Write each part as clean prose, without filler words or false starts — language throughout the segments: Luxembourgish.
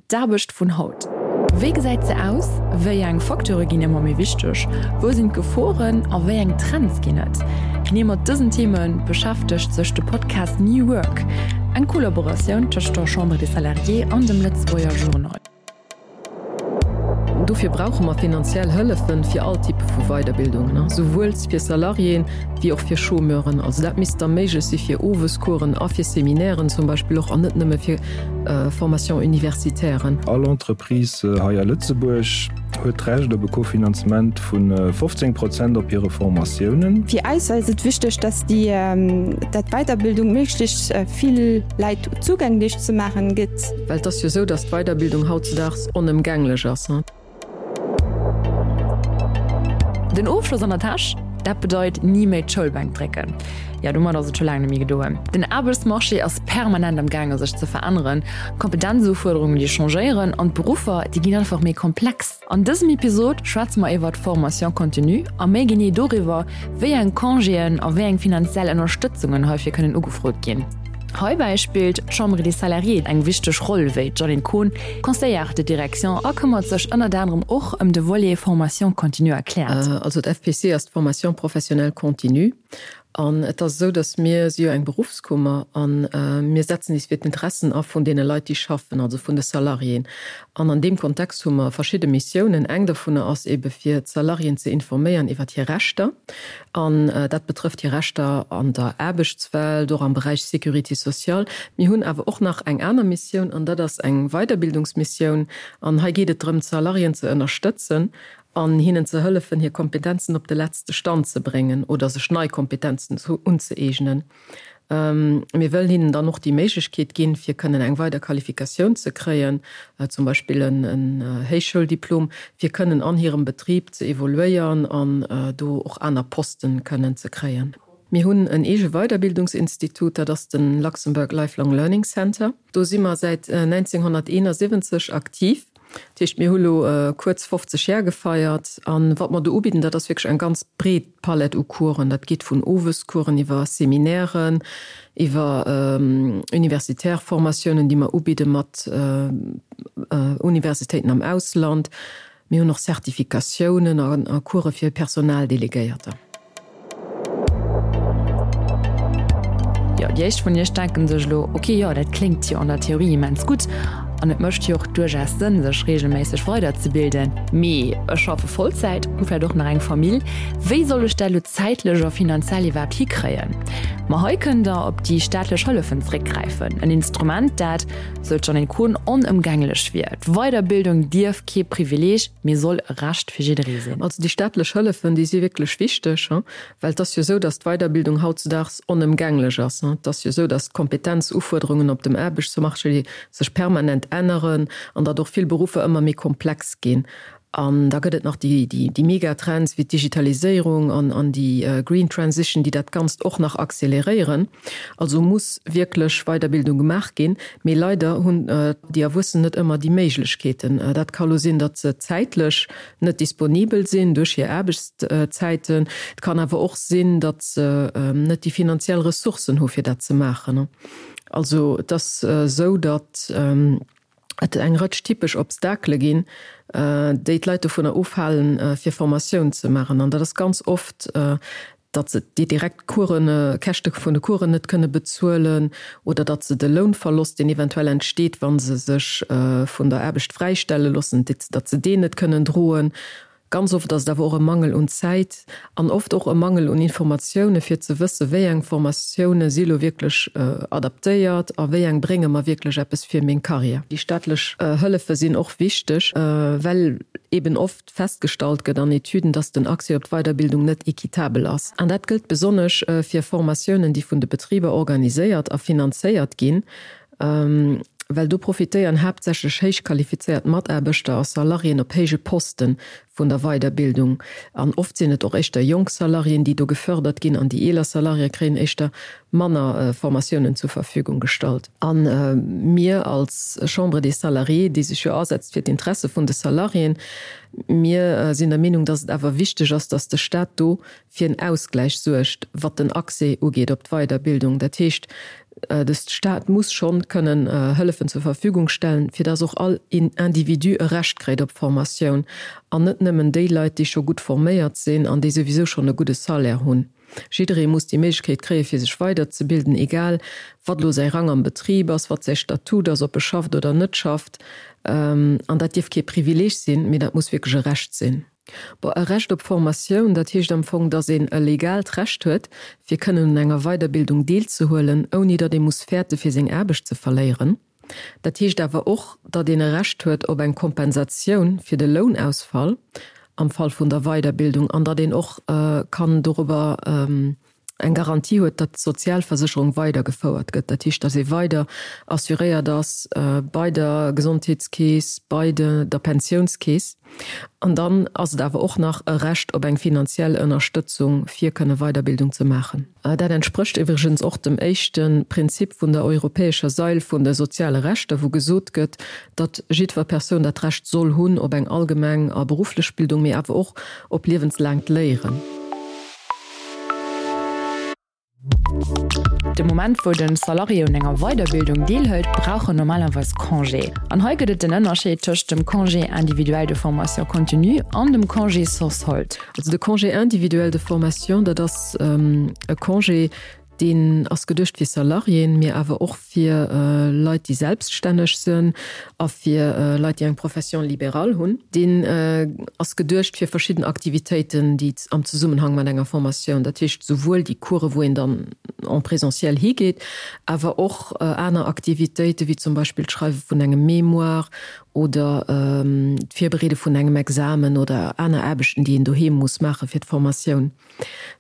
D'Aarbecht vun haut. Wéi gesäit se aus? Wéi eng Facteure ginn ëmmer méi wichteg? Wou sinn d'Geforen a wéi eng Trends ginn et? Genee mat dësen Theme beschäftegt sech de Podcast New Work, eng Kollaboratioun tëscht der Chambre des Salariés an dem Lëtzebuerger Journal. Dofir brauche mer finanziell Hëllefe fir all Type vu Weiderbildungen, souwuel fir Salariéen wéi och fir Chômeuren. Also dat misst da méiglech si fir Owescoursen a fir Seminairen zum Beispill och, an net nëmme fir Formation universitairen. All Entreprise hei a Lëtzebuerg huet d'Recht op e Kofinanzement vu 15 Prozent op hire Formatiounen. Fir eis ass et wichteg, dass déi dat Weiterbildung méiglechst vill Läit zougänglech ze maachen gëtt. Well et ass jo esou, dass d'Weiderbildung hautzedaags onëmgänglech ass. Den Ofschloss an der Täsch, dat bedeit ni méi d'Schoulbänk drécken. Jo, domat ass et scho laang net méi gedoen. Den Aarbechtsmarché ass permanent am gaange sech ze veränneren, d'Kompetenzufuerderungen déi changéieren an d'Beruffer déi ginn einfach méi komplex. An dësem Episod schwätze mer iwwert d'Formation continue a méi genee doriwwer, wéi eng Congéen a wéi eng finanziell Ënnerstëtzungen heifir kënnen ugefrot ginn. Heibäi spillt d'Chambre des Salariés eng wichteg Roll, wéi d'Jeanine Kohn, Conseillère de direction a këmmert sech ënnert anerem och ëm de Volet Formation continue erkläert. Also d'FPC ass d'Formation professionnelle continue an et ass esou, datt mir si jo eng Beruffskummer a mir setzen is fir d'Interessen a vun deene Leit, déi schaffen, also vun de Salariéen. An an deem Kontext hu mer verschidde Missiounen. Eng dovunner ass eebe fir d'Salariéen ze informéieren iwwert hir Rechter. An dat betrëfft hir Rechter an der Aarbechtswelt, och am Beräich Sécurité sociale. Mir hunn awer och nach eng aner Missioun, an dat ass eng Weiderbildungsmissioun. An hei geet et drëm, d'Salariéen ze ënnerstëtzen an hinnen ze hëllefen, hir Kompetenzen op de letzte Stand ze bréngen oder sech nei Kompetenzen unzëeegnen. Mir wëllen hinnen dann och déi Méiglechkeet ginn, fir kënnen eng weider Qualifikatioun ze kréien, zum Beispill en Héichschouldiplom, fir kënnen an hirem Betrib ze evoluéieren an do och aner Posten kënnen ze kréien. Mir hunn en eege Weiderbildungsinstitut, dat ass de Luxembourg Lifelong Learning Center. Do si mer säit 1971 aktiv. Dat heescht, mir hu lo kuerz 50 Jar gefeiert. A wat mer do ubidden, dat ass wierklech eng ganz breet Palett u Coursen. Dat geet vun Owescoursen iwwer Seminairen, iwwer universitär Formatiounen, déi mer ubidde mat Universitéiten am Ausland. Mir hunn och Zertifikatiounen a Course fir Personaldelegéierter. Jo, déi éischt vun iech denken sech elo, ok, jo, dat kléngt jo an der Theorie immens gutt an et mécht jo och duerchaus Sënn, sech reegelméisseg weiderzebilden, mee ech schaffe Vollzäit, hu vläicht och nach eng Famill, wéi soll ech dat elo zäitlech a finanziell iwwerhaapt hikréien? Ma hei kënnt der op déi staatlech Hëllefen zréckgräifen, en Instrument, dat, sou d'Jeanine Kohn, onëmgänglech wier. D'Weiderbildung dierf kee Privileeg, mee soll e Recht fir jidderee sinn. Also déi staatlech Hëllefen, déi si wierklech wichteg, well et ass jo esou, datt d'Weiderbildung hautzedaags onëmgänglech ass. Et ass jo esou, datt d'Kompetenzufuerderungen op dem Aarbechtsmarché sech permanent änneren an datt och vill Beruffer ëmmer méi komplex ginn. An da gëtt et nach déi Megatrends wéi d'Digitaliséierung an déi Green Transition, déi dat Ganzt och nach acceleréieren. Also muss wierklech Weiderbildung gemaach ginn. Mee leider hunn déi Erwuessen net ëmmer déi Méiglechkeeten. Dat ka lo sinn, datt se zäitlech net disponibel sinn duerch hir Aarbechtszäiten. Et kann awer och sinn, datt se net déi finanziell Ressourcen hu fir dat ze maachen. Also et ass esou, datt et eng Rëtsch typesch Obstakele ginn, déi d'Leit dovunner ofhalen, fir Formatioun ze maachen. An dat ass ganz oft, datt se déi direkt Coursen, Käschte vun de Coursen net kënne bezuelen oder datt se de Lounverlost, deen eventuell entsteet, wa se sech vun der Aarbecht fräistelle loossen, datt se deen net kënnen droen. Ganz oft ass et awer och e Mangel un Zäit an oft och e Mangel un Informatioune fir ze wësse wéi eng Formatioune si lo wierklech adaptéiert a wéi eng brénge mer wierklech eppes fir meng Karriär. Déi staatlech Hëllefe sinn och wichteg, well eben oft festgestallt gëtt an Etüden, dass den Accès op d'Weiderbildung net equitabel ass. An dat gëllt besonnesch fir Formatiounen, déi vun de Betriber organiséiert a finanzéiert ginn. Well do profitéieren haaptsächlech héich qualifizéiert Mataarbechter a Salariéen op héije Poste vun der Weiderbildung. An oft sinn et och éischter jonk Salariéen, déi do gefördert ginn, an déi eeler Salariéë kréien éischter manner Formatiounen zur Verfügung gestallt. A mir als Chambre des Salariés, déi sech jo asetzt fir d'Interesse vun de Salariéen, mir sinn der Meenung, dass et awer wichteg ass, dass de Stat do fir en Ausgläich suergt, wat den Accès ugeet op d'Weiderbildung. Dat heescht. De Staat muss schonn kënnen Hëllefen zur Verfügung stellen, fir dass och all Individu e Recht kréit op Formatioun, an net nëmmen déi Leit, déi scho gutt forméiert sinn an déi souwisou schonn e gudde Salaire hunn. Jidderee muss déi Méiglechkeet kréie fir sech weiderzebilden, egal wat elo säi Rang am Betrib ass, wat säi Statut ass, ob e schafft oder net schafft. An dat dierf kee Privileeg sinn, mee dat muss wierklech e Recht sinn. Bon, e Recht op Formatioun, dat heescht am Fong, datt een e legaalt Recht huet, fir kënnen un enger Weiderbildung deelzehuelen, ouni datt ee muss fäerte fir seng Aarbecht ze verléieren. Dat heescht awer och, datt een e Recht huet op eng Kompensatioun fir de Lounausfall am Fall vun der Weiderbildung an datt een och kann dorobber eng Garantie huet, datt d'Sozialversécherung weidergefouert gëtt, dat heescht, datt ee weider assuréiert ass bei der Gesondheetskeess, bei der Pensiounskeess. An dann ass et awer och nach e Recht op eng finanziell Ënnerstëtzung, fir kënne Weiderbildung ze maachen. Dat entsprécht iwwregens och dem éischte Prinzip vun der europäescher Sail vun de soziale Rechter, wou gesot gëtt, datt jiddwer Persoun dat Recht soll hunn op eng allgemeng a berufflech Bildung, mee awer och op liewenslaangt Léieren. De Moment wou den Salarié un enger Weiderbildung deelhëlt, brauch en normalerweis Congé. An hei gëtt et den Ënnerscheed tëscht dem Congé individuel de formation continue an dem Congé sans solde. Also de Congé individuel de formation, dat ass e Congé, deen ass geduecht fir Salariéen, mee awer och fir Leit, déi selbststänneg sinn a fir Leit, déi eng Profession libérale hunn. Deen ass geduecht fir verschidden Aktivitéiten, déi am Zesummenhang mat enger Formatioun, dat heescht souwuel déi Coursen, wou een dann en présentiel higeet, awer och aner Aktivitéiten, wéi zum Beispill d'Schreiwe vun engem Mémoire oder d'Virbereede vun engem Examen oder aner Aarbechten, déi een doheem muss maache fir d'Formatioun.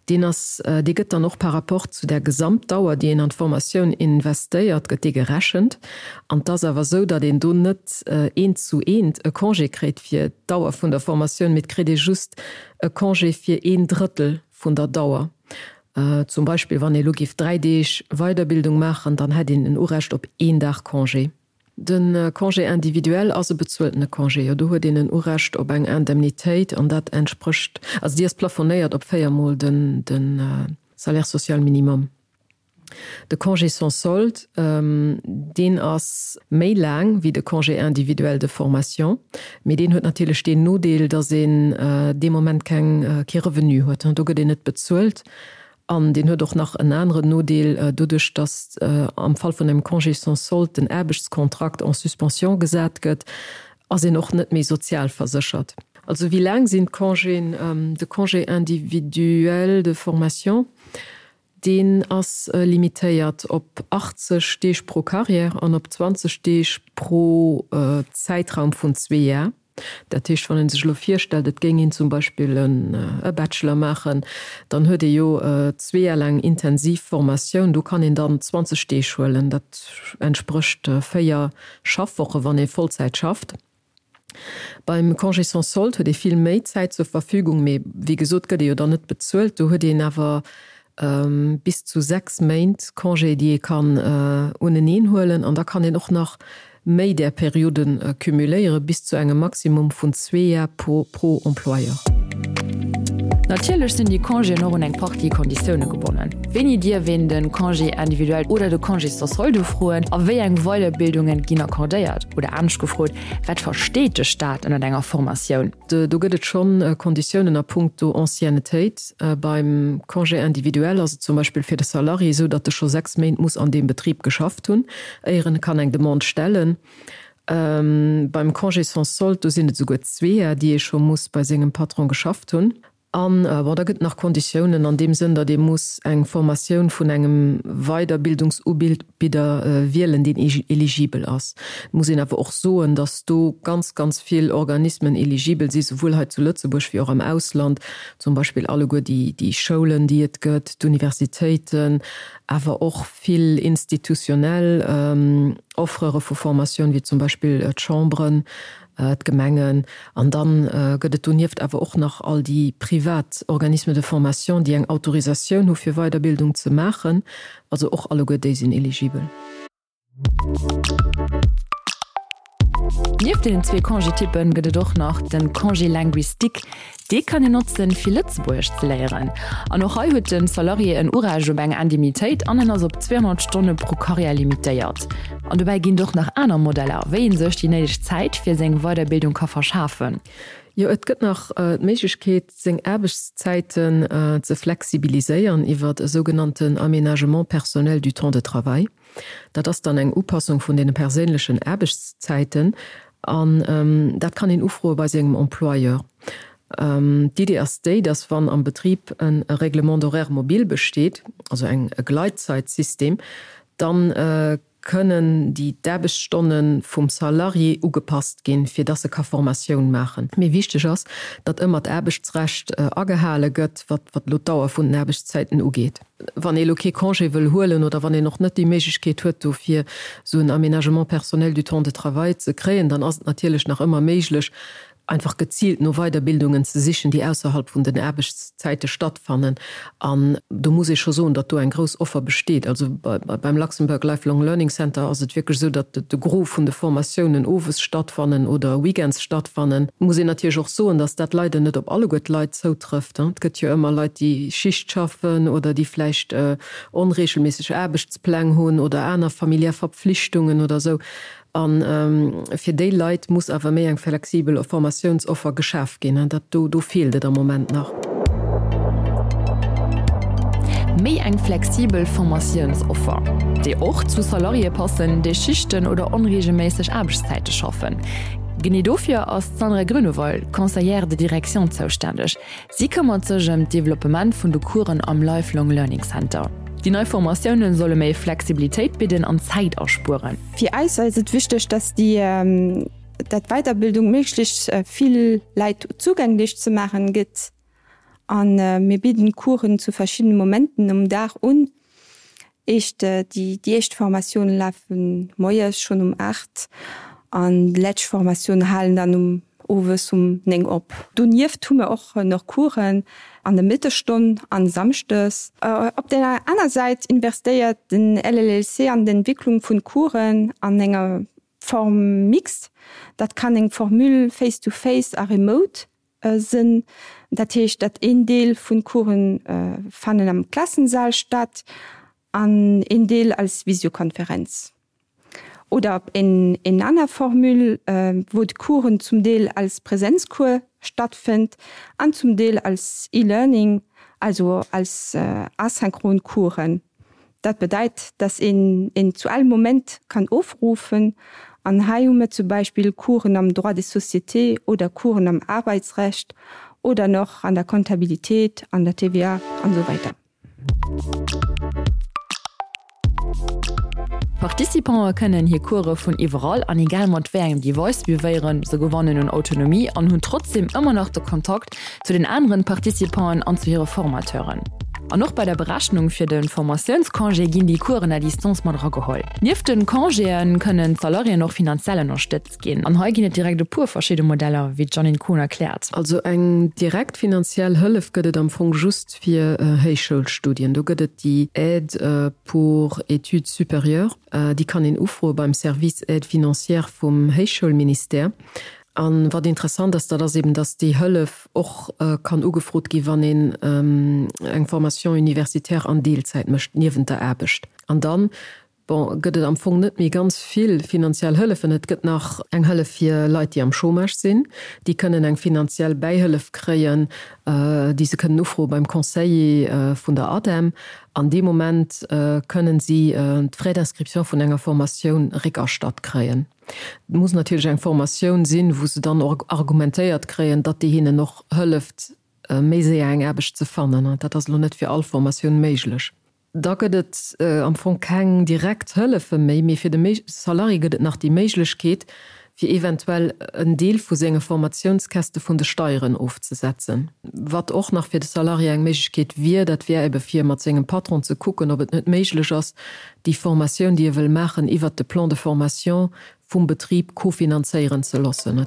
Deen ass, dee gëtt dann och par rapport zu der Gesamtdauer, déi een an d'Formatioun investéiert, gëtt dee gerechent. An et ass awer esou, datt een do net eent zu eent e Congé kréit fir d'Dauer vun der Formatioun, mee et kritt ee just e Congé fir een Drëttel vun der Dauer. Zum Beispill, wann ee elo géif 3 Deeg Weiderbildung maachen, dann hätt een en Urecht op een Dag Congé. De Congé individuel ass e bezueltene Congé, jo. Do huet een en Urecht op eng Indemnitéit an dat entsprécht, also déi ass plafonéiert op véiermol de Salaire social minimum. De Congé sans solde, deen ass méi laang wéi de Congé individuel de formation, mee deen huet natierlech deen Nodeel, datt een dee Moment keng, kee Revenu huet. Do gëtt een net bezuelt. An deen huet och nach en aneren Nodeel, doduerch datt am Fall vun engem Congé sans solde den Aarbechtskontrakt en suspension gesat gëtt, ass een och net méi sozialverséchert. Also wéi laang sinn d'Congéen? De Congé individuel de formation, deen ass limitéiert op 80 Deeg pro Carrière an op 20 Deeg pro Zäitraum vun zwee Jar. Dat heescht, wann ee sech elo virstellt, et géing een zum Beispill e Bachelor maachen, dann huet ee jo zwee Jar laang intensiv Formatioun. Do kann een dann 20 Deeg huelen. Dat entsprécht véier Schaffwoche wann ee Vollzäit schafft. Beim Congé sans solde huet ee vill méi Zäit zur Verfügung, mee wéi gesot gëtt ee jo dann net bezuelt. Do huet een awer bis zu 6 Méint Congé, déi ee kann uneneen huelen an da kann een och nach méi där Periode cumuléiere bis zu engem Maximum vun zwee Jar pro Employeur. Natierlech sinn déi Congéen och un eng Partie Konditioune gebonnen. Wéini dierf een de Congé individuel oder de Congé sans solde ufroen a wéi eng Weiderbildunge ginn accordéiert? Oder anescht gefrot, Wat versteet de Staat ënnert enger Formatioun? Do gëtt et schonn Konditiounen a puncto Anciennetéit. Beim Congé individuel ass et zum Beispill fir de Salarié esou, datt e scho 6 Méint muss an deem Betrib geschafft hunn, éier en kann eng Demande stellen. Beim Congé sans solde, do sinn et esouguer zweeër, déi ee scho muss bei sengem Patron geschafft hunn. An, bon, da gëtt et nach Konditiounen an deem Sënn, datt ee muss eng Formatioun vun engem Weiderbildungsubidder wielen, deen eligibel ass. Et muss een awer och soen, datt do ganz, ganz vill Organismen eligibel si, souwuel hei zu Lëtzebuerg wéi och am Ausland, zum Beispill alleguer déi Schoulen, déi et gëtt, d'Universitéiten, awer och vill institutionell Offrere vu Formatioun, wéi zum Beispill d'Chambren. d'Gemengen, an dann gëtt et donieft awer och nach all déi privat Organismes de formation, déi eng Autorisatioun hu fir Weiderbildung ze maachen. Also och alleguer déi sinn eligibel. Nieft deenen zwee Congé-Typpen gëtt et och nach de Congé linguistique. Dee kann een notzen, fir Lëtzebuergesch ze léieren. An och hei huet de Salarié en Urecht op eng Indemnitéit an en ass op 200 Stonne pro Karriär limitéiert. An dobäi ginn et och nach aner Modeller, wéi ee sech déi néideg Zäit fir seng Weiderbildung ka verschafen. Jo, et gëtt nach d'Méiglechkeet, seng Aarbechtszäiten ze flexibiliséieren iwwert e sougenannten Aménagement personnel du temps de travail. Dat ass dann eng Upassung vun deene perséinlechen Aarbechtszäiten an dat kann een ufroe bei sengem Employeur. D'Idee ass déi, dass wann am Betrib e Règlement d'horaire mobile besteet, also eng e Gleitzeitsystem, dann kënnen déi d'Aarbechtsstonne vum Salarié ugepasst ginn, fir dass e ka Formatioun maachen. Mee wichteg ass, datt ëmmer d'Aarbechtsrecht agehale gëtt, wat elo d'Dauer vun den Aarbechtszäiten ugeet. Wann ee elo kee Congé wëll huelen oder wann een och net déi Méiglechkeet huet dofir esou en Aménagement personnel du temps de travail ze kréien, dann ass et natierlech nach ëmmer méiglech, einfach geziilt no Weiderbildungen ze sichen, déi ausserhalb vun den Aarbechtszäite stattfannen. An do muss ee scho soen, datt do eng grouss Offer besteet. Also beim Luxembourg Lifelong Learning Center ass et wierklech esou, datt de Gros vun de Formatiounen owes stattfannen oder weekends stattfannen. Muss een natierlech och soen, datt dat leider net op alleguer d'Leit zoutrëfft. Et gëtt jo ëmmer Leit, déi Schicht schaffen oder déi vläicht onreegelméisseg Aarbechtspläng hunn oder aner familiär Verpflichtungen oder esou. A fir déi Leit muss awer méi eng flexibel Formatiounsoffer geschaf ginn. Dat do, do feelt et am Moment nach. Méi eng flexibel Formatiounsoffer, déi och zu Salariéë passen, déi Schichten oder onreegelméisseg Aarbechtszäite schaffen. Genee dofir ass d'Sandra Grünewald, Conseillère de direction, zoustänneg. Si këmmert sech ëm d'Developpement vun de Coursen am Lifelong Learning Center. Déi nei Formatioune solle méi Flexibilitéit bidden an Zäit aspueren. Fir eis ass et wichteg, dass déi dat Weiterbildung méiglechst vill Läit zugänglech ze maachen gëtt. A mir bidden Coursen zu verschiddene Momenten um Dag un. Éischt, déi éischt Formatioune lafe moies schonn um 8 an déi lescht Formatioune halen dann um owes um 9 op. Donieft hu mir och nach Coursen an der Mëttesstonn an samschdes. Op der aner Säit investéiert den LLLC an d'Entwicklung vun Coursen an enger Form mixte. Dat kann eng Formule face to face a remote sënn. Dat heescht, dat een Deel vun Coursen fannen am Klassensaal statt an een Deel als Visiokonferenz. Oder op een een aner Formule, wou d'Coursen zum Deel als Präsenzcours stattfënnt an zum Deel als E-Learning, also als asynchron Coursen. Dat bedeit, dass een en zu all Moment kann ofrufen. An hei hu mir zum Beispill Coursen am Droit des sociétés oder Coursen am Arbeitsrecht oder nach an der Comptabilitéit, an der TVA an esou weider. D'Participante kënnen hir Course vun iwwerall an egal mat wéi engem Device suivéieren. Se gewannen un Autonomie an hunn trotzdeem ëmmer nach de Kontakt zu den aneren Participanten an zu hire Formateuren. An och bei der Berechnung fir de Formatiounscongé ginn déi Coursen à distance mat erageholl. Nieft de Congéë kënnen d'Salariéen och finanziell ënnerstëtzt ginn. An hei ginn et direkt e puer verschidde Modeller, wéi d'Jeanine Kohn erkläert. Also eng direkt finanziell Hëllef gëtt et am Fong just fir Héichschoulstudien. Do gëtt et déi Aide pour études supérieures, déi kann een ufroe beim Service Aide financière vum Héichschoulministère. A wat interessant ass, dat ass eben, dass déi Hëllef och kann ugefrot gi wann een eng Formation universitaire an Deelzäit mécht niewent der Aarbecht. An dann, bon, gëtt et am Fong net méi ganz vill finanziell Hëllefen. Et gëtt nach eng Hëllef fir Leit, déi am Chômage sinn. Déi kënnen eng finanziell Bäihëllef kréien, déi se kënnen ufroe beim Conseiller vun der ADEM. An dee Moment kënnen si d'Frais d'inscription vun enger Formatioun réckerstatt kréien. Et muss natierlech eng Formatioun sinn, wou se dann och argumentéiert kréien, datt déi hinnen och hëlleft, méi séier eng Aarbecht ze fannen. Dat ass elo net fir all Formatioun méiglech. Da gëtt et am Fong keng direkt Hëllefe méi, mee fir de Salarié gëtt et nach déi Méiglechkeet, fir eventuell en Deel vu senge Formatiounskäste vun de Steieren ofzesetzen. Wat och nach fir de Salarié eng Méiglechkeet wier, dat wär ebe fir mat sengem Patron ze kucken, ob et net méiglech ass, déi Formatioun, déi e wëll maachen, iwwert de Plan de formation vum Betrib kofinanzéieren ze loossen.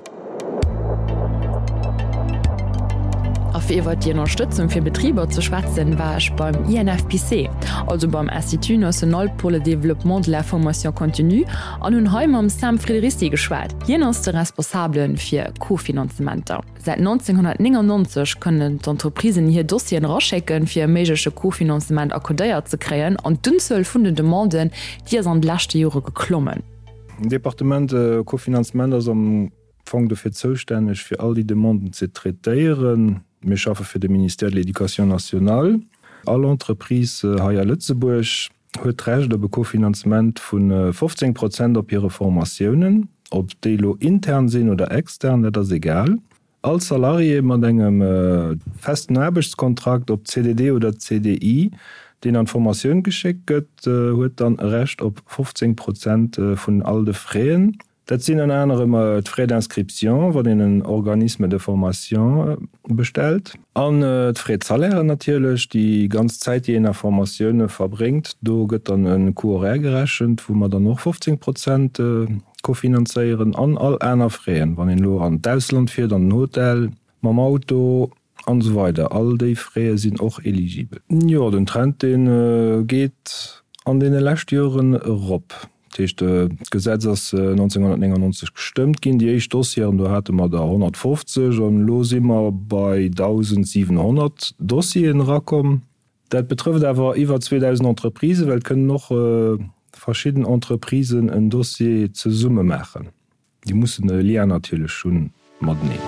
A. Fir iwwer déi Ënnerstëtzung fir Betriber ze schwätzen, war ech beim INFPC, also beim Institut national pour le développement de la formation continue, an hunn hei mam Sam Friderici geschwat. Hien ass de Responsabele fir Kofinanzementer. Säit 1999 kënnen d'Entreprisen hir Dossieren eraschécken, fir e méigleche Kofinanzement accordéiert ze kréien, an d'Unzuel vun den Demanden, déi ass an de leschte Jore geklommen. Den Departement Kofinanzement ass am Fong dofir zoustänneg, fir all déi Demanden ze traitéieren. Mir schaffe fir de Ministère de l'Éducation nationale. All Entreprise hei a Lëtzebuerg huet d'Recht op e Kofinanzement vu 15 Prozent op hire Formatiounen, ob déi elo intern sinn oder extern, dat ass egal. All Salarié mat engem festen Aarbechtskontrakt, ob CDD oder CDI, deen an d'Formatioun geschéckt gëtt, huet dann e Recht op 15 Prozent vun all de Fräen. Dat sinn ënner anerem d'Frais d'inscription, wann een en Organisme de formation bestellt, an d'Frais de salaire natierlech, déi ganz Zäit, déi een a Formatioune verbréngt. Do gëtt dann e Coût horaire gerechent, wou mer dann och 15 Prozent kofinanzéieren, an all aner Fraisen, wann een elo an d'Ausland fiert, an den Hotel, mam Auto an esou weider. All déi Fraise sinn och eligibel. Jo, den Trend, dee geet an deene leschte Joren erop. Dat heescht, d'Gesetz ass 1999 gestëmmt ginn, déi éischt Dossieren, do hate mer der 150 an elo si mer bei 1.700 Dossieren erakomm. Dat betrëfft awer iwwer 2.000 Entreprisen, well et kënnen och verschidden Entreprisen en Dossier zesumme maachen. Déi mussen e Lien natierlech hu mateneen.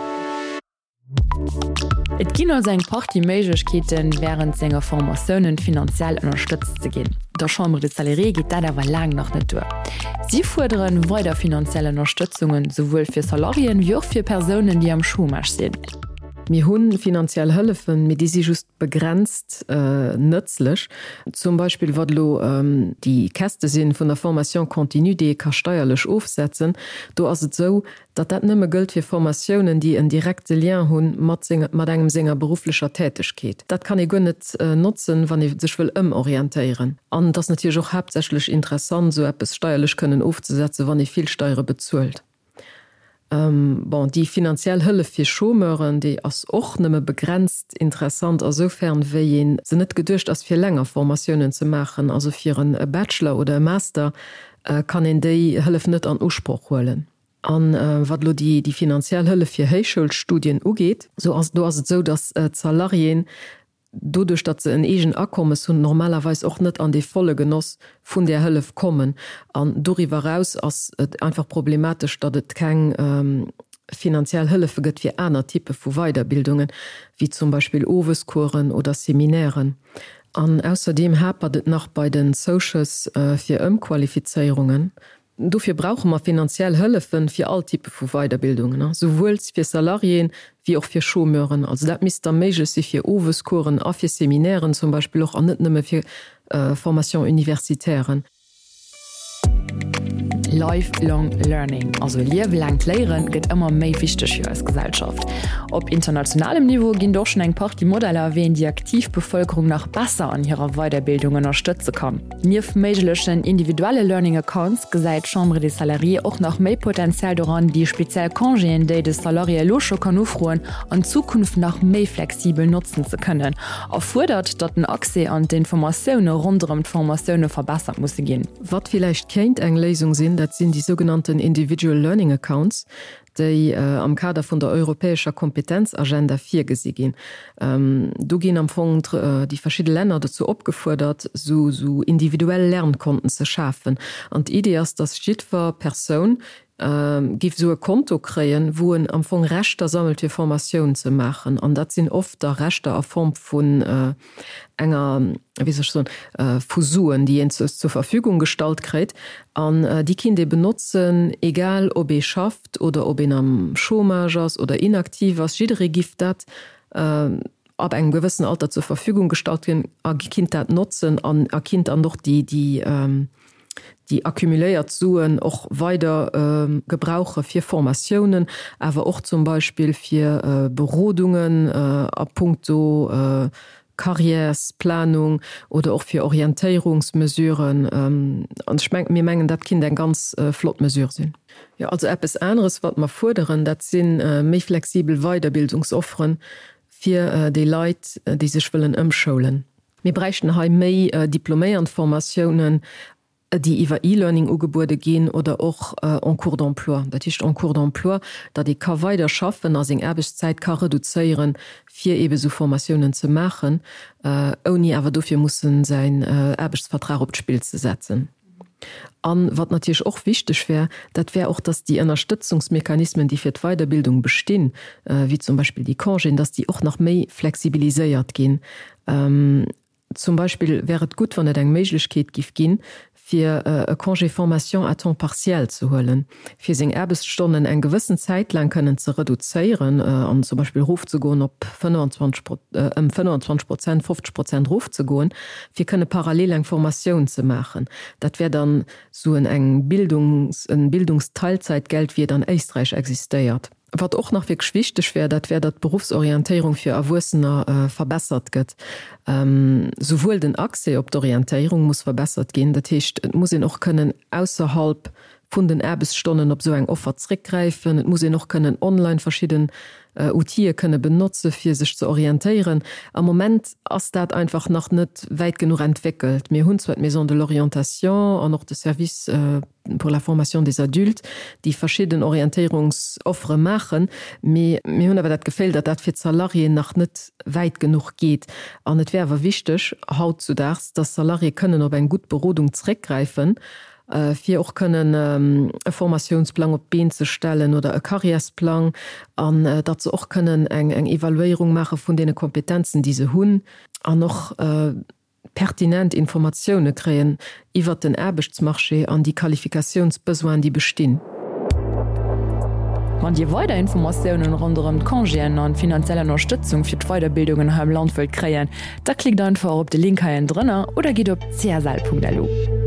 Et ginn also eng Partie Méiglechkeeten, wärend senger Formatiounen finanziell ënnerstëtzt ze ginn. Der Chambre des Salariés geet dat awer laang nach net duer. Si fuerderen weider finanziell Ënnerstëtzungen, souwuel fir Salariéen, wéi och fir Persounen, déi am Chômage sinn. Mir hu finanziell Hëllefen, mee déi si just begrenzt nëtzlech. Zum Beispill wat elo déi Käste si vun der Formation continue, déi ee ka steierlech ofsetzen. Do ass et esou, datt dat nëmme gëllt fir Formatiounen, déi en direkte Lien hu mat mat engem senger berufflecher Tätegkeet. Dat kann ee guer net notzen, wann ee sech wëll ëmorientéieren. An et ass natierlech och haaptsächlech interessant, esou eppes steierlech kënnen ofzesetzen, wann ee vill Steiere bezuelt. Bon, déi finanziell Hëllef fir Chômeuren, déi ass och nëmme begrenzt interessant asoufern, wéi ee se net geduecht ass, fir länger Formatiounen ze maachen. Also fir e Bachelor oder e Master kann een déi Hëllef net an Usproch huelen. A wat elo déi finanziell Hëllef fir Héichschoulstudien ugeet, sou ass do ass et esou, datt d'Salariéen doduerch datt se en eegen Akommes hunn, normalerweis och net an dee volle Genoss vun där Hëllef kommen. An doriwwer eraus ass et einfach problematesch, datt et keng finanziell Hëllefe gëtt fir aner Typpe vu Weiderbildungen, wéi zum Beispill Owescoursen oder Seminairen. An ausserdeem hapert et nach bei den Zouschëss fir Ëmqualifizéierungen. Dofir brauche mer finanziell Hëllefe fir all Typpe vu Weiderbildungen, souwuel fir Salariéen wéi och fir Chômeuren. Also dat misst da méiglech si fir Owescoursen a fir Seminairen zum Beispill och, an net nëmme fir Formation-universitairen. Lifelong Learning, also liewelaangt Léieren, gëtt ëmmer méi wichteg fir eis Gesellschaft. Op internationalem Niveau ginn et och schonn eng Partie Modeller, wéi een déi aktiv Bevëlkerung nach besser an hirer Weiderbildung ënnerstëtze kann. Nieft méiglechen individuelle Learning Accounts gesäit d'Chambre des Salariés och nach méi Potenzial doran, déi speziell Congéen, déi de Salarié elo scho kann ufroen, an Zukunft nach méi flexibel notzen ze kënnen a fuerdert, datt den Accès an d'Informatioune ronderëm d'Formatioune verbessert musse ginn. Wat villäicht kéint eng Léisung sinn, dat sinn déi sougenannten Individual Learning Accounts, déi am Kader vun der europäescher Kompetenzagenda virgesi ginn. Do ginn am Fong déi verschidde Länner dozou opgefuerdert, esou individuell Lernkonten ze schafen. An d'Idee ass, datt jiddwer Persoun géif esou e Konto kréien, wou en am Fong Rechter sammelt, fir Formatioun ze maachen. An dat sinn oft da Rechter a Form vun enger, wéi soll ech soen, vu Suen, déi een zur Verfügung gestallt kréit an déi kinnt ee benotzen, egal ob ee schafft oder ob een am Chômage ass oder inaktiv ass. Jidderee giff dat ab engem gewëssen Alter zur Verfügung gestallt ginn a kinnt dat notzen an a kinnt dann och déi, déi, déi accumuléiert Suen och weider gebrauche fir Formatiounen, awer och zum Beispill fir Berodungen a puncto Carrièresplanung oder och fir Orientéierungsmesuren. An ech mengen, mir mengen, dat kinnt eng ganz flott Mesure sinn. Jo, also eppes aneres, wat mer fuerderen, dat si méi flexibel Weiderbildungsofferen. fir déi Leit, déi sech wëllen ëmschoulen. Mir bräichten hei méi Diploméierndformatiounen, déi iwwer E-Learning ugebuede ginn oder och en cours d'emploi. Dat heescht en cours d'emploi, datt ee ka weider schaffen a seng Aarbechtszäit ka reduzéieren, fir eebe sou Formatiounen ze maachen, ouni awer dofir mussen säin Aarbechtsvertrag op d'Spill ze setzen. A wat natierlech och wichteg wär, dat wär och, datt déi Ënnerstëtzungsmechanismen, déi fir d'Weiderbildung bestinn, wéi zum Beispill déi Congéen, datt déi och nach méi flexibiliséiert ginn. Zum Beispill wär et gutt, wann et eng Méiglechkeet giff ginn, fir e Congé formation à temps partiel ze huelen, fir seng Aarbechtsstonnen eng gewëssen Zäit laang kënnen ze reduzéieren an zum Beispill erofzegoen op 25, ëm 25 Prozent, 50 Prozent erofzegoen, fir kënne parallel eng Formatioun ze maachen. Dat wär dann sou en eng Bildungs, en Bildungsteilzeitgeld, wéi et an Éisträich existéiert. Wat och nach wierklech wichteg wär, dat wär, datt d'Beruffsorientéierung fir Erwuessener verbessert gëtt. Souwuel den Accès op d'Orientéierung muss verbessert ginn, dat heescht, et muss een och kënnen ausserhalb vun den Aarbechtsstonnen op esou eng Offer zréckgräifen, et muss een och kënnen online verschidden Outile kënne benotze fir sech ze orientéieren. Am Moment ass dat einfach nach net wäit genuch entwéckelt. Mir hunn zwar d'Maison de l'orientation an och de Service, pour la formation des adultes, déi verschidden Orientéierungsoffere maachen, mee mir hunn awer dat Geféll, datt dat fir d'Salariéen nach net wäit genuch geet. An et wär awer wichteg hautzudaags, datt Salariéë kënnen op eng gutt Berodung zréckgräifen, fir och kënnen e Formatiounsplang op d'Been ze stellen oder e Karriärsplang, an datt se och kënnen eng Evaluéierung maache vun deene Kompetenzen, déi se hunn, an och pertinent Informatioune kréien iwwert den Aarbechtsmarché an déi Qualifikatiounsbesoinen, déi bestinn. Wann Dir weider Informatiounen ronderëm d'Congéen an d'finanziell Ënnerstëtzung fir d'Weiderbildungen hei am Land wëllt kréien, da klickt einfach op de Link hei ënnendrënner oder gitt op csl.lu.